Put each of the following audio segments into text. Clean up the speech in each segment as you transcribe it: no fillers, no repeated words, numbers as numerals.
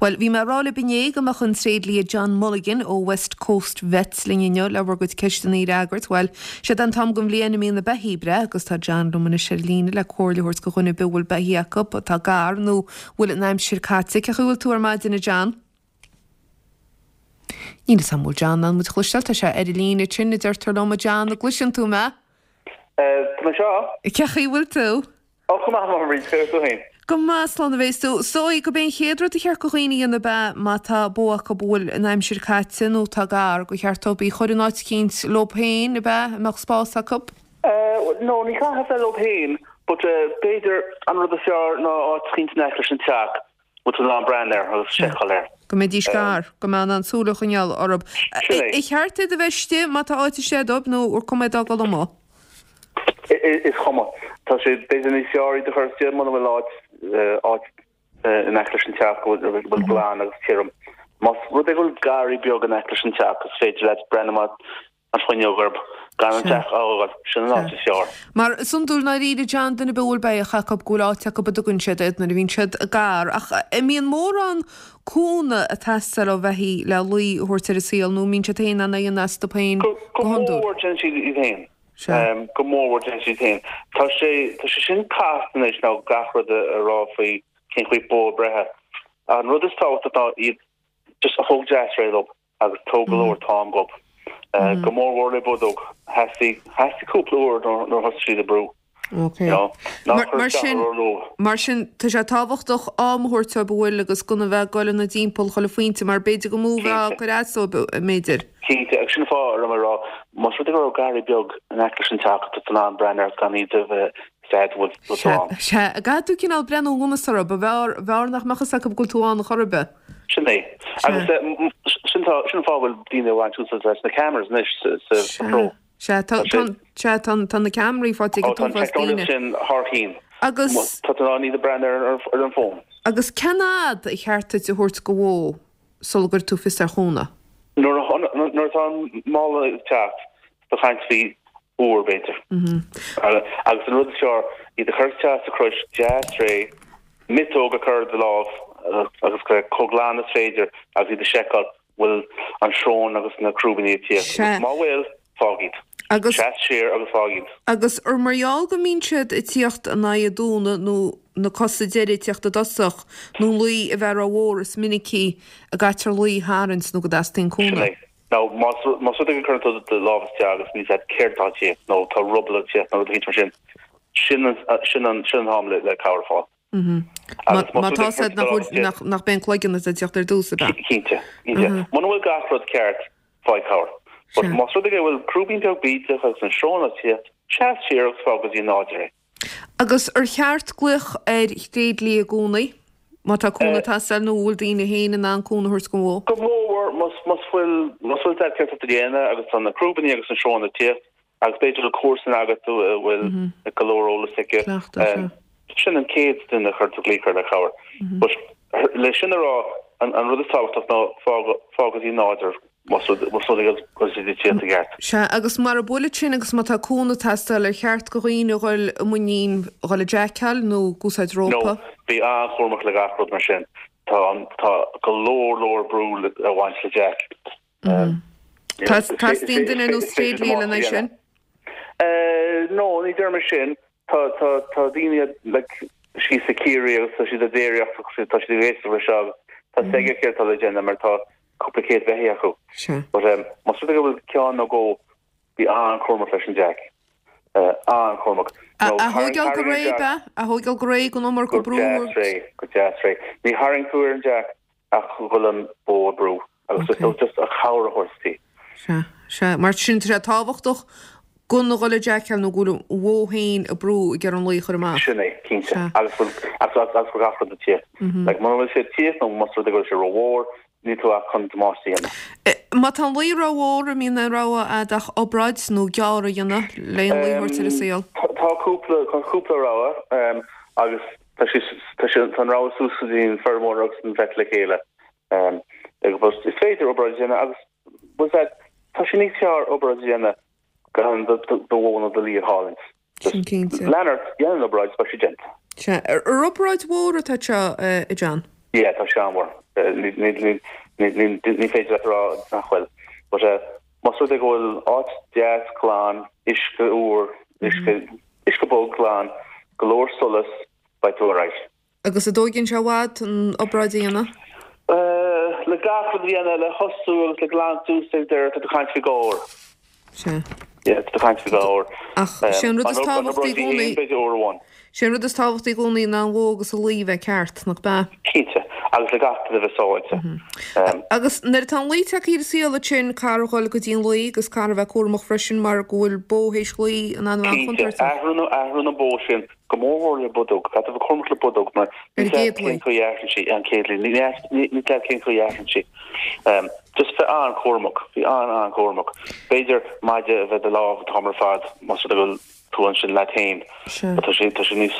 Bhuel, bhí mé ag rá libh inné go mbeadh an tréidlia John Mulligan ó West Coast Vets linn inniu le bhur gcuid ceisteanna a fhreagairt. Bhuel, séard é an t-am den bhliain a mbíonn na beithígh ag breith agus tá John liom anois ar an líne le comhairle a thabhairt do dhuine ar bith a bhfuil beithígh acu atá gar nó bhfuil an aimsir caite. Cén chaoi a bhfuil tú ar maidin, a John? Níl 'fhios a'm bhfuil John in ann muid a chloisteáil, tá sé ar an líne ansin, a deirtear liom, a John, an gcloiseann tú mé? Tá mé anseo. Cén chaoi a bhfuil tú? Ó, go maith, a Bhríd, cén chaoi tú féin? Go maith, slán a bhéas tú. Is dóigh gurb é an chéad rud a cheart do dhaoine a dhéanamh ab ea, má tá bó acu a bhfuil an aimsir caite nó atá gar, gur cheart dóibh í a chur in áit eicínt leo féin, ab ea, a mbeadh spás acu? No, ní chaithfidh a bheith leo féin, but b'fhéidir an rud is fearr ná áit eicínt in aice leis an teach. bhfuil tú in ann breathnú air agus seiceáil air. Go mbeidís gar, go mbeadh in ann súil a choinneáil orthu. Sin é. Ar cheart iad a bheith istigh má tá áit istigh dóibh nó ar cuma iad a fhágáil amuigh? Is cuma. Tá sé b'fhéidir níos fearr iad a chur istigh muna bhfuil áit áit in aice leis an teach go bhfuil glan agus tirim. Más rud é go bhfuil garraí beag in aice leis an teach is féidir leat breathnú amach an fuinneog orthu gan an teach a fhágáil, sin an áit is fearr. Mar is iondúil i ndáiríre John, duine ar bith a bhfuil beithíoch acu go bhfuil áit acu a dtugann siad iad nuair a bhíonn siad gar. Ach an mbíonn mórán cúnamh ag teastáil ó bheithígh le lao a thabhairt ar an saol nó an mbíonn siad féin in ann é a dhéanamh astu féin Go go hiondúil? mór déanann siad iad féin. Go mór mhór déanann siad féin. Tá sé tá sé sin casta anois nó gach rud a rá faoi cén chaoi bó ag breith. An rud is tábhachtach ná iad just a thóg deas réidh leo. agus tóg go leor t-am dhób. Go mór mhór le bodóg. Theastaigh, theastaigh cúpla uair nuair a thosaigh siad ag brú. Ok. Ná cuir Mar sin, mar sin, tá sé tábhachtach am a thabhairt dóibh an bhfuil agus gan a bheith ag goil ina dtimpeall chuile phointe mar b'fhéidir gur mó a bheadh ag cur as dóibh, b'fhéidir. Cinnte, agus sin an fáth a raibh mé ag rá, más rud é go raibh garraí beag in aice leis an teach, tá tú in ann breathnú air gan iad a bheith sad bhfuil tú Sea, ann. sea, caithfidh tú cineál breathnú anuas orthu, ba bhfearr, bhfearr nach mbeadh fhios acu go bhfuil tú ann chor ar bith. Sin é. Agus sin tá, sin an fáth a bhfuil daoine ag baint úsáid as na cameras anois sa, sa Sea, chró. sea, tá, Tá tá, sé, sea, tá, tá na ceamaraí faighte ag ó an tá an t-uafás teicneolaíocht daoine. sin thar chinn. Agus. Tá tú in ann iad a breathnú ar, ar, ar an bhfón. Agus cén fhad ar cheart duit a thabhairt do bhó sula gcuirfidh tú fios ar chúnamh? Nuair a, nuair atá an mála ag teacht, tá caint faoi uair, b'fhéidir. Agus an rud is fearr, iad a chur isteach sa chrois deas réidh, miotóg a chur ar do lámh agus chomh glan is féidir agus iad a sheiceáil bhfuil an srón agus na crúibíní ag tíocht. Sea. Agus má bhfuil, fág iad. Agus. Seas siar agus fág iad. Agus ar mar gheall go mbíonn siad ag tíocht in aghaidh an dúnadh nó na cosa deiridh ag tíocht i dtosach nó an lao a bheith rómhór is minicí a gcaitear lao a tharraingt nó go dteastaíonn Sin cúnamh. é. Now, más más rud é go gcuireann tú do lámh isteach agus níl 's agat céard atá ag tíocht nó tá ruball ag tíocht nó rud eicínt mar sin, sin an sin an sin an t-am le le cabhair a fháil. Agus más Má rud é tá go 's agat gcuireann tú do lámh isteach. nach nach b'é an cloigeann atá ag tíocht ar dtús, ab ea? Cinnte, cinnte. Muna bhfuil gach rud ceart, faigh cabhair. But más rud é go bhfuil crúibín beag bídeach agus an srón ag tíocht, seas siar agus fág go dtí an nádúr é. Agus ar cheart glaoch ar thréidlia i gcónaí má tá cúnamh ag teastáil nó an bhfuil daoine féin in ann cúnamh a thabhairt don bhó? Go mór mhór más bhfuil más bhfuil 's agat céard atá tú a dhéanamh agus tá na crúibíní agus an srón ag tíocht agus b'fhéidir bhfuil comharsan agat a bhfuil go leor eolas aici. Cleachtadh, sea. Sin an chéad duine a chuir tú glaoch air le cabhair. But le sin a rá, an rud is tábhachtach ná fág fág go dtí nádúr más rud más rud é go bhfuil siad ag tíocht i gceart. Sea, agus mara bhfuil sin agus má tá cúnamh ag teastáil, ar cheart do dhaoine a dhul i muinín dhul ag jackáil nó ag úsáid No, rópa? bí an-chúramach le gach rud mar sin. Tá an tá go leor leor brú a bhaint le jack. Teastaíonn duine ar nós tréidlia lena aghaidh sin? No, ní deirim sin. Tá tá tá daoine like síos i Ciarraí agus tá siad ag déiríocht agus tá siad ag éisteacht leis seo agus tá 's aige céard atá le déanamh mar tá cúpla céad beithíoch acu. Sea. But um, más rud é go bhfuil ceann nó dhó bí an-chúramach leis an jack. An-chúramach. A thóigeáil go réidh, ab ea? A thóigeáil go réidh gan iomarca brú. Go deas réidh, go deas réidh. Ní tharraing tú ar an jack ach go bhfuil an bó ag brú agus just okay. just a chabhair a thabhairt di. Sea, sea. Mar sin tá sé tábhachtach gan a dhul ag jackáil nó go bhfuil an bhó féin ag brú ag iarraidh an lao a chur amach. Sin é, cinnte. Sea. Agus bhfuil agus agus agus gach rud ag tíocht. Like muna bhfuil sé ag tíocht nó más rud é go bhfuil sé rómhór, níl tú ach chun damáiste a dhéanamh. Má tá an lao rómhór, an mbíonn aon rogha a'd ach obráid nó gearradh a dhéanamh le an lao a thabhairt ar an saol? Tá cúpla tá cúpla rogha agus Tá sé, tá sé, tá an rogha suas go dtí an feirmeoir agus an vet le chéile. Agus is féidir obráid a dhéanamh agus was that, tá sé níos fearr obráid a dhéanamh gan do, do, do bhó nó do lao a chailliúint. Sin cinnte. Lean ort, déan an obráid, beidh sé déanta. Sea. Ar obráid mhór atá seo, a John? Yeah, tá sé an-mhór. Ní féidir leat a rá nach bhfuil. But más rud é go bhfuil áit deas glan, uisce úr, uisce, uisce bog glan, go leor solas, beidh tú alright. Agus an dtóigeann sé i bhfad an obráid a dhéanamh? Le gach rud a dhéanamh, le thosú agus le glanadh suas ag deireadh, tá tú ag caint faoi 2 uair. Sea. Yeah, tá tú ag caint faoi 2 uair. Ach sé an rud is tábhachtaí i gcónaí. B'fhéidir uair amháin. Sé an rud is tábhachtaí i gcónaí ná an bhó agus an lao bheith ceart, nach b'ea? Cinnte, agus le gach duine bheith sábháilte. Agus nuair atá an lao tagtha ar an saol ansin, caithfear a dhul go dtí an lao agus caithfear a bheith cúramach freisin mar go bhfuil bó théis lao in ann a bheith Cinnte, an-chontúirteach. athraíonn athraíonn an bó sin go mór mhór le bodóg. Caithfidh tú bheith cúramach le bodóg mar Ar an gcéad lao. cén chaoi a athraíonn sí, an chéad lao. Ní ní cén chaoi a athraíonn sí. Just bheith an-chúramach, bheith an-an-chúramach. B'fhéidir maide a bheith i do lámh an t-am ar fad más rud é go bhfuil tú ansin leat féin. Sea. Tá sé, tá sé níos,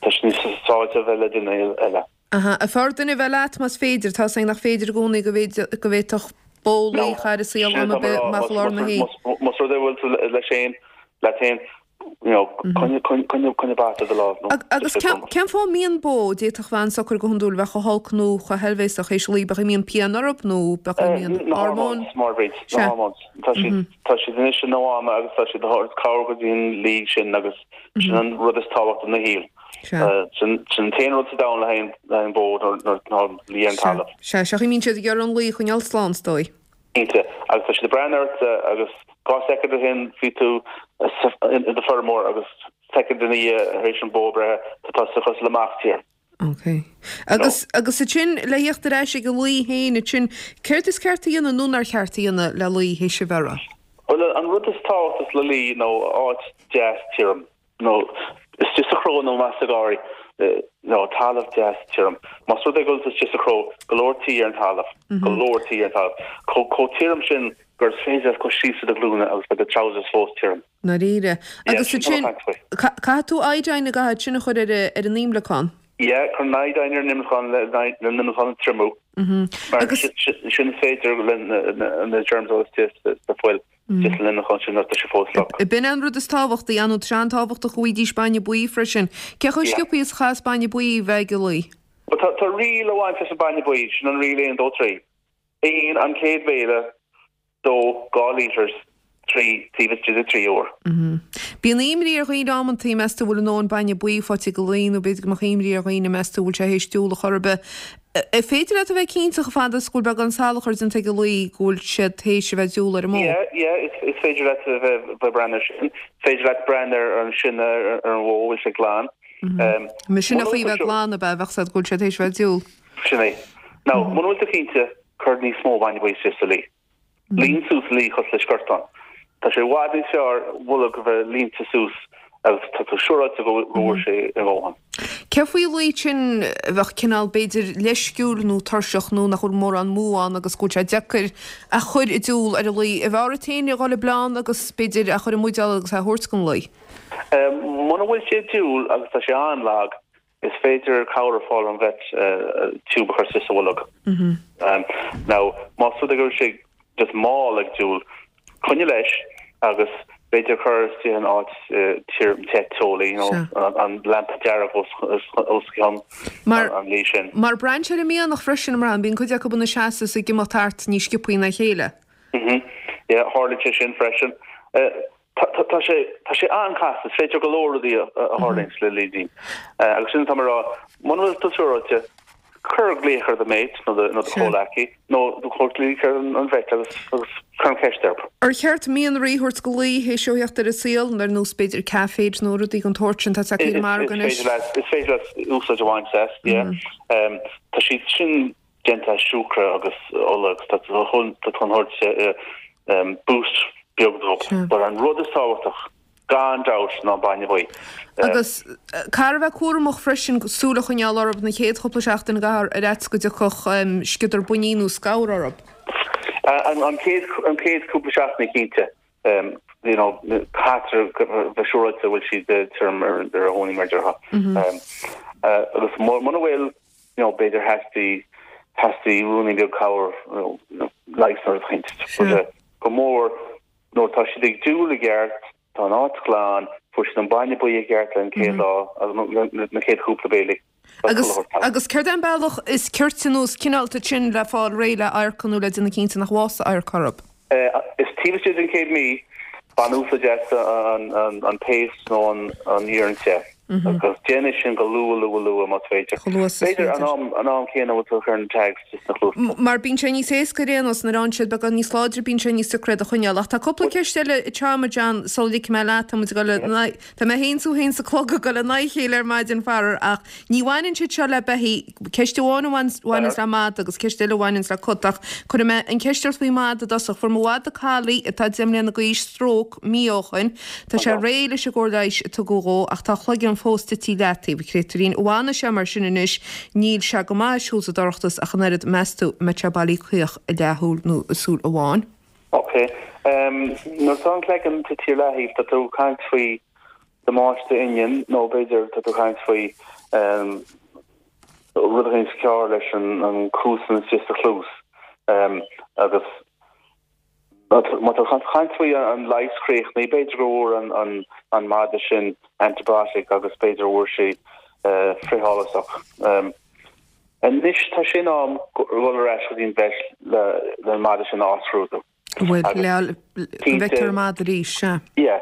tá sé níos sábháilte a bheith le duine eile. Aha. An fearr duine a bheith leat más féidir? Tá 's againn nach féidir i gcónaí go bhféidir, go bhféadfadh bó lao a chur ar an saol am ar bith amach i lár na hoíche. Más rud é go bhfuil tú leis féin, leat féin, you know, coinnigh, coinnigh, coinnigh, coinnigh bata i do lámh nó Agus just cén, bheith cén fáth a mbíonn bó, d'fhéadfadh bheith an-socair go hiondúil, bheith chomh holc nó chomh heilbhéasach théis lao, b'ea a mbíonn pian orthu nó b'ea a mbíonn Na hormóin? hormones, mar bhríd, na Sea. hormones. Tá siad, tá siad anois ina mháma agus tá siad ag tabhairt cabhair go dtí an lao sin agus sin an rud is tábhachtaí ina shaol. Sea. Sin, sin an t-aon rud sa domhan le haghaidh, le haghaidh an bó nuair, nuair atá an lao ar an Sea. talamh. Sea, sea, bíonn siad ag iarraidh an lao a choinneáil slán, is dóigh. Cinnte. Agus tá siad ag breathnú ort agus 2 soicind ó shin bhí tú i do feirmeoir agus soicind ina dhiaidh tar éis an bó breithe tá tusa cosúil le mac tíre. Ok. Agus, agus ansin, le theacht ar ais ag an lao féin ansin, céard is ceart a dhéanamh nó nár cheart a dhéanamh le lao théis a bheireadh? Bhuel, an rud is tábhachtaí le lao nó áit deas tirim. nó istigh sa chró nó más sa gharraí, nó talamh deas tirim. Más rud é go bhfuil tú istigh sa chró, go leor tuí ar an talamh, go leor tuí ar an talamh. Chomh tirim sin gur féidir leat dul síos ar do ghlúine agus beidh do trousers fós tirim. ndáiríre. Yeah, Agus sin tá ansin, mé ag caint faoi. caithfidh tú iodine an gcaithfidh sin a chur ar ar an imleacán? Yeah, cuir an iodine ar an imleacán le an imleacán a triomú. Mar Agus. sin is féidir le na germs a bhfuil istigh sa fuil. Just an imleacán sin nuair atá sé fós fliuch. B'in é an rud is tábhachtaí, ar ndóigh tá sé an-tábhachtach go bhfaighidís bainne buí freisin. Cé chomh Yeah. sciobthaí is a chaithfeas bainne buí a bheith ag an lao? Bhuel tá tá riail a bhaint leis an bainne buí, sin an riail 1, 2, 3. 1, an chéad bhéile, 2, 2 litres, 3, taobh istigh de 3 uair. Bíonn imní ar dhaoine amantaí, meas tú bhfuil a ndóthain bainne buí faighte ag an lao nó b'fhéidir go mbeadh imní ar dhaoine meas tú bhfuil sé théis diúl a chor ar bith. An féidir leat a bheith cinnte chomh fada is go bhfuil beagán salachair déanta ag an lao go bhfuil siad théis a bheith ag diúl ar an mbó? Yeah, yeah, is, is féidir leat a bheith, bheith breathnú ar sin. Is féidir leat breathnú ar an sionnach ar, ar an bhó, bhfuil sé glan. Um, Mar sin a chaoi bheith glan ab ea, bheadh siad go bhfuil siad théis a bheith ag diúl. Sin é. Now, muna bhfuil tú cinnte, cuir níos mó bainne buí isteach sa lao. Líon suas an lao cosúil le sciortán. Tá sé i bhfad níos fearr bolg a bheith líonta suas agus tá tú siúráilte go bhfuair sé a dhóthain. Cé faoi lao sin a bheadh cineál b'fhéidir leisciúil nó tuirseach nó nach bhfuil mórán múch ann agus go bhfuil sé deacair a chur i dtiúl ar an lao. An bhfearr duit féin a dhul ag bleán agus b'fhéidir a chur i mbuidéal agus é a thabhairt don lao? Muna bhfuil sé ag diúl agus tá sé an-lag, Is féidir cabhair a fáil ón vet tiúb a chur isteach sa bholg. Now, más rud é go bhfuil sé just mall ag diúl, coinnigh leis agus b'fhéidir cur istigh in áit tirim te teolaí, you know, an lampa dearg os os cionn an lao sin. Mar braitheann sé ar an mianach freisin, mar bíonn cuid acu ina seasamh is ag imeacht thart níos sciobthaí ná a chéile. Mhm. Yeah, tharlaíonn sé sin freisin. Tá sé, tá sé an-chasta, is féidir go leor rudaí a tharlaíonn le laoidín. Agus sin atá mé a rá, muna bhfuil tú siúráilte, cuir glaoch ar do mate nó do nó do chomhleacaí nó cuir glaoch ar an vet agus agus cuir an cheist orthu. Ar cheart mianraí a thabhairt do lao théis dó theacht ar an saol, ar nós b'fhéidir caféid nó rudaí den tsórt sin, tá sé ar an margadh anois. Is féidir leat, is féidir leat úsáid a bhaint as, yeah. Tá siad sin déanta as siúcra agus ola agus tá tú chun thabhairt boost beag dóibh. But an rud is tábhachtach gan dabht ná an bainne buí. Agus caithfear a bheith cúramach freisin súil a choinneáil orthu na chéad chúpla seachtain ar fhaitíos go dtiocfadh sciodar buinnín nó scamhar orthu. An chéad an chéad cúpla seachtain cinnte. You know, caithfear bheith siúráilte go bhfuil siad tirim ar a thóiní mar a déarfá. Agus muna bhfuil you know, b'fhéidir theastaigh, theastaigh ruainnín beag cabhair, you know, leigheas nó rud éicint. But go mór, nuair atá siad ag diúl i gceart, tá an áit glan, fuair siad an bainne buí i gceart le an chéad lá, agus na chéad chúpla béilí. Agus, agus céard é an bealach is cirte nó is cineálta sin le fáil réidh le adharca nó le déanamh cinnte nach bhfásfaidh adharca orthu? Is taobh istigh den chéad mí, bain úsáid as an paste nó an iarann te. Agus déan é sin go luath, luath, luath más féidir. Chomh luath is is féidir. B'fhéidir an am céanna a bhfuil tú ag cur na tags sna cluasa. Mar bíonn sé níos éasca ar aon nós, nuair a fhaigheann siad beagán níos láidre bíonn sé níos deacra iad a choinneáil. Ach tá cúpla ceist eile ag teacht, a John, sula ligfidh mé leat, tá muid ag dul le Tá mé féin 's thú féin 's an clog ag dul in aghaidh a chéile ar maidin, faraor, ach ní bhaineann siad seo le beithígh. Ceist amháin a bhaineanns le mada agus ceist eile a bhaineanns le cat, ach cuirfidh mé an cheist ort faoi mhada i dtosach. Fuair mo mhada collie, atá 10 mbliana d'aois, stróc mí ó shoin. Tá sé réidh leis an gcóir leighis a tugadh dhó, ach tá a chloigeann fós tite i leataobh, a chréatúirín. An bhfanfaidh sé mar sin anois? Níl sé go maith ag siúl sa dorchadas ach an oiread. Meas tú an mbeidh sé bailí caoch i leathshúil nó i súil amháin? Ok. Nuair atá an cloigeann tite ar leathaobh, tá tú ag caint faoi damáiste inghine nó b'fhéidir tá tú ag caint faoi rud éigin cearr leis an cuasan istigh sa chluas. Agus má tá tú ag caint faoi an leigheas críochnaithe, b'fhéidir go bhfuair an madra sin antibiotic agus b'fhéidir go bhfuair sé frithfholasach. Anois tá sé in am dhul ar ais go dtí an vet le an madra sin a athscrúdú. Bhuel, le go bhfeictear an madra arís, sea. Yeah,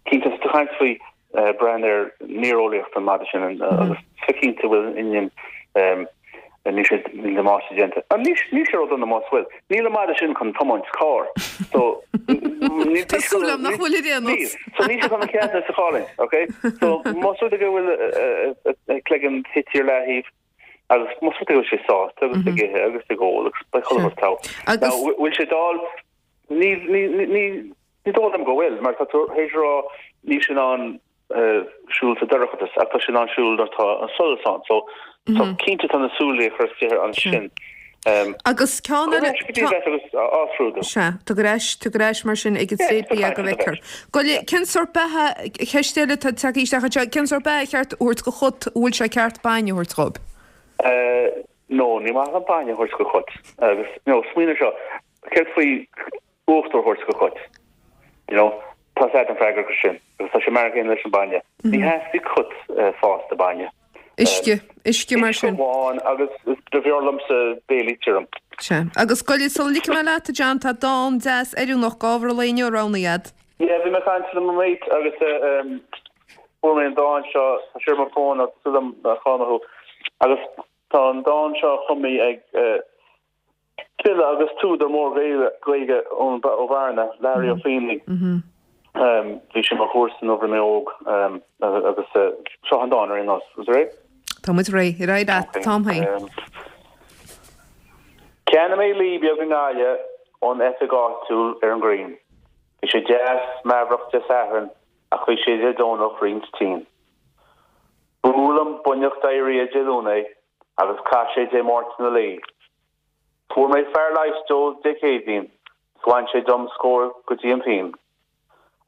cinnte, tá tú ag caint faoi breathnú ar néareolaíocht an mhadra sin agus bheith cinnte go bhfuil an inghine, níl sé, níl damáiste déanta. Níl sé ródhona más bhfuil. Níl an madra sin chun tiomáint carr. So, níl Tá súil agam nach bhfuil ar aon nós. So níl sé chun an ceadúnas a chailliúint, okay? So más rud é go bhfuil a chloigeann tite ar leathaobh, Agus más rud é go bhfuil sé sásta agus ag ithe agus ag ól agus beidh chuile rud togha. Agus. Now, bhfuil sé dall? Ní, ní, ní, ní dóigh liom go bhfuil, mar tá tú théis a rá níl sé in ann siúl sa dorchadas ach tá sé in ann siúl nuair atá an solas ann. So, so cinnte tá na súile ag cur isteach air ansin. Agus ceann eile. Go dtí vet agus á scrúdú. Sea, tar ar ais, tar ar ais mar sin ag an tréidlia go bhfeicfear. Gabh i leith, cén sórt beatha, ceist eile atá tagtha isteach anseo, cén sórt beatha ar cheart a thabhairt do chat, an bhfuil sé ceart bainne a thabhairt dhóibh? No, ní maith liom bainne a thabhairt do chat. Agus, you know, smaoinigh ar seo, céard faoi uachtar a thabhairt do chat? You know, tá 's agat an freagra acu sin, agus tá sé mar an gcéanna leis an bainne. Ní theastaíonn cat fásta bainne. Uisce, uisce mar sin. Uisce amháin agus b'fhearr liomsa béilí tirim. Sea. Agus gabh i leith, sula ligfidh mé leat, a John, tá dán deas oiriúnach d'ábhar an lae inniu roghnaithe agat. Yeah, bhí mé ag caint le mo mate agus fuair mé an dán seo, tá sé ar mo fón agus súil agam nach cáil thú. Agus tá an dán seo cumtha ag File agus t-údar mór Gaeilge ó Bhearna, Learaí Ó Faoláin. Bhí sé mo chomharsa nuair a bhí mé óg agus seo an dán ar aon nós. Is réidh? Tá muid réidh. Ar aghaidh leat, an t-am féin. Cheannaigh mé lao beag i nGaillimh ón oifig áitiúil ar an ghrian. Bhí sé deas meafarach Dé Sathairn ach bhí sé Dé Domhnach roinnt tinn. Bhuail an buinneach diarrhea Dé Luain é agus chaith sé Dé Máirt ina luí. Fuair mé fear leighis dó Dé Céadaoin 's bhain sé dom scór go dtí an phinn.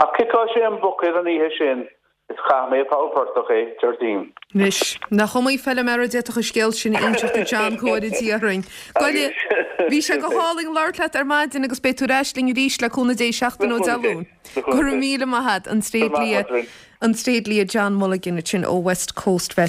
Ach chiceáil sé an buicéad an oíche sin is chaith mé i bpoll portach é Déardaoin. Anois, nach iomaí feilméara a d'fhéadfadh an scéal sin a inseacht a John, go bhfóire Dia orainn. Gabh i leith, bhí sé go hálainn labhairt leat ar maidin agus beidh tú ar ais linn arís le cúnamh Dé seachtain ó Dé Luain. Go raibh míle maith agat, an tréidlia, an tréidlia John Mulligan ansin ó West Coast Vet.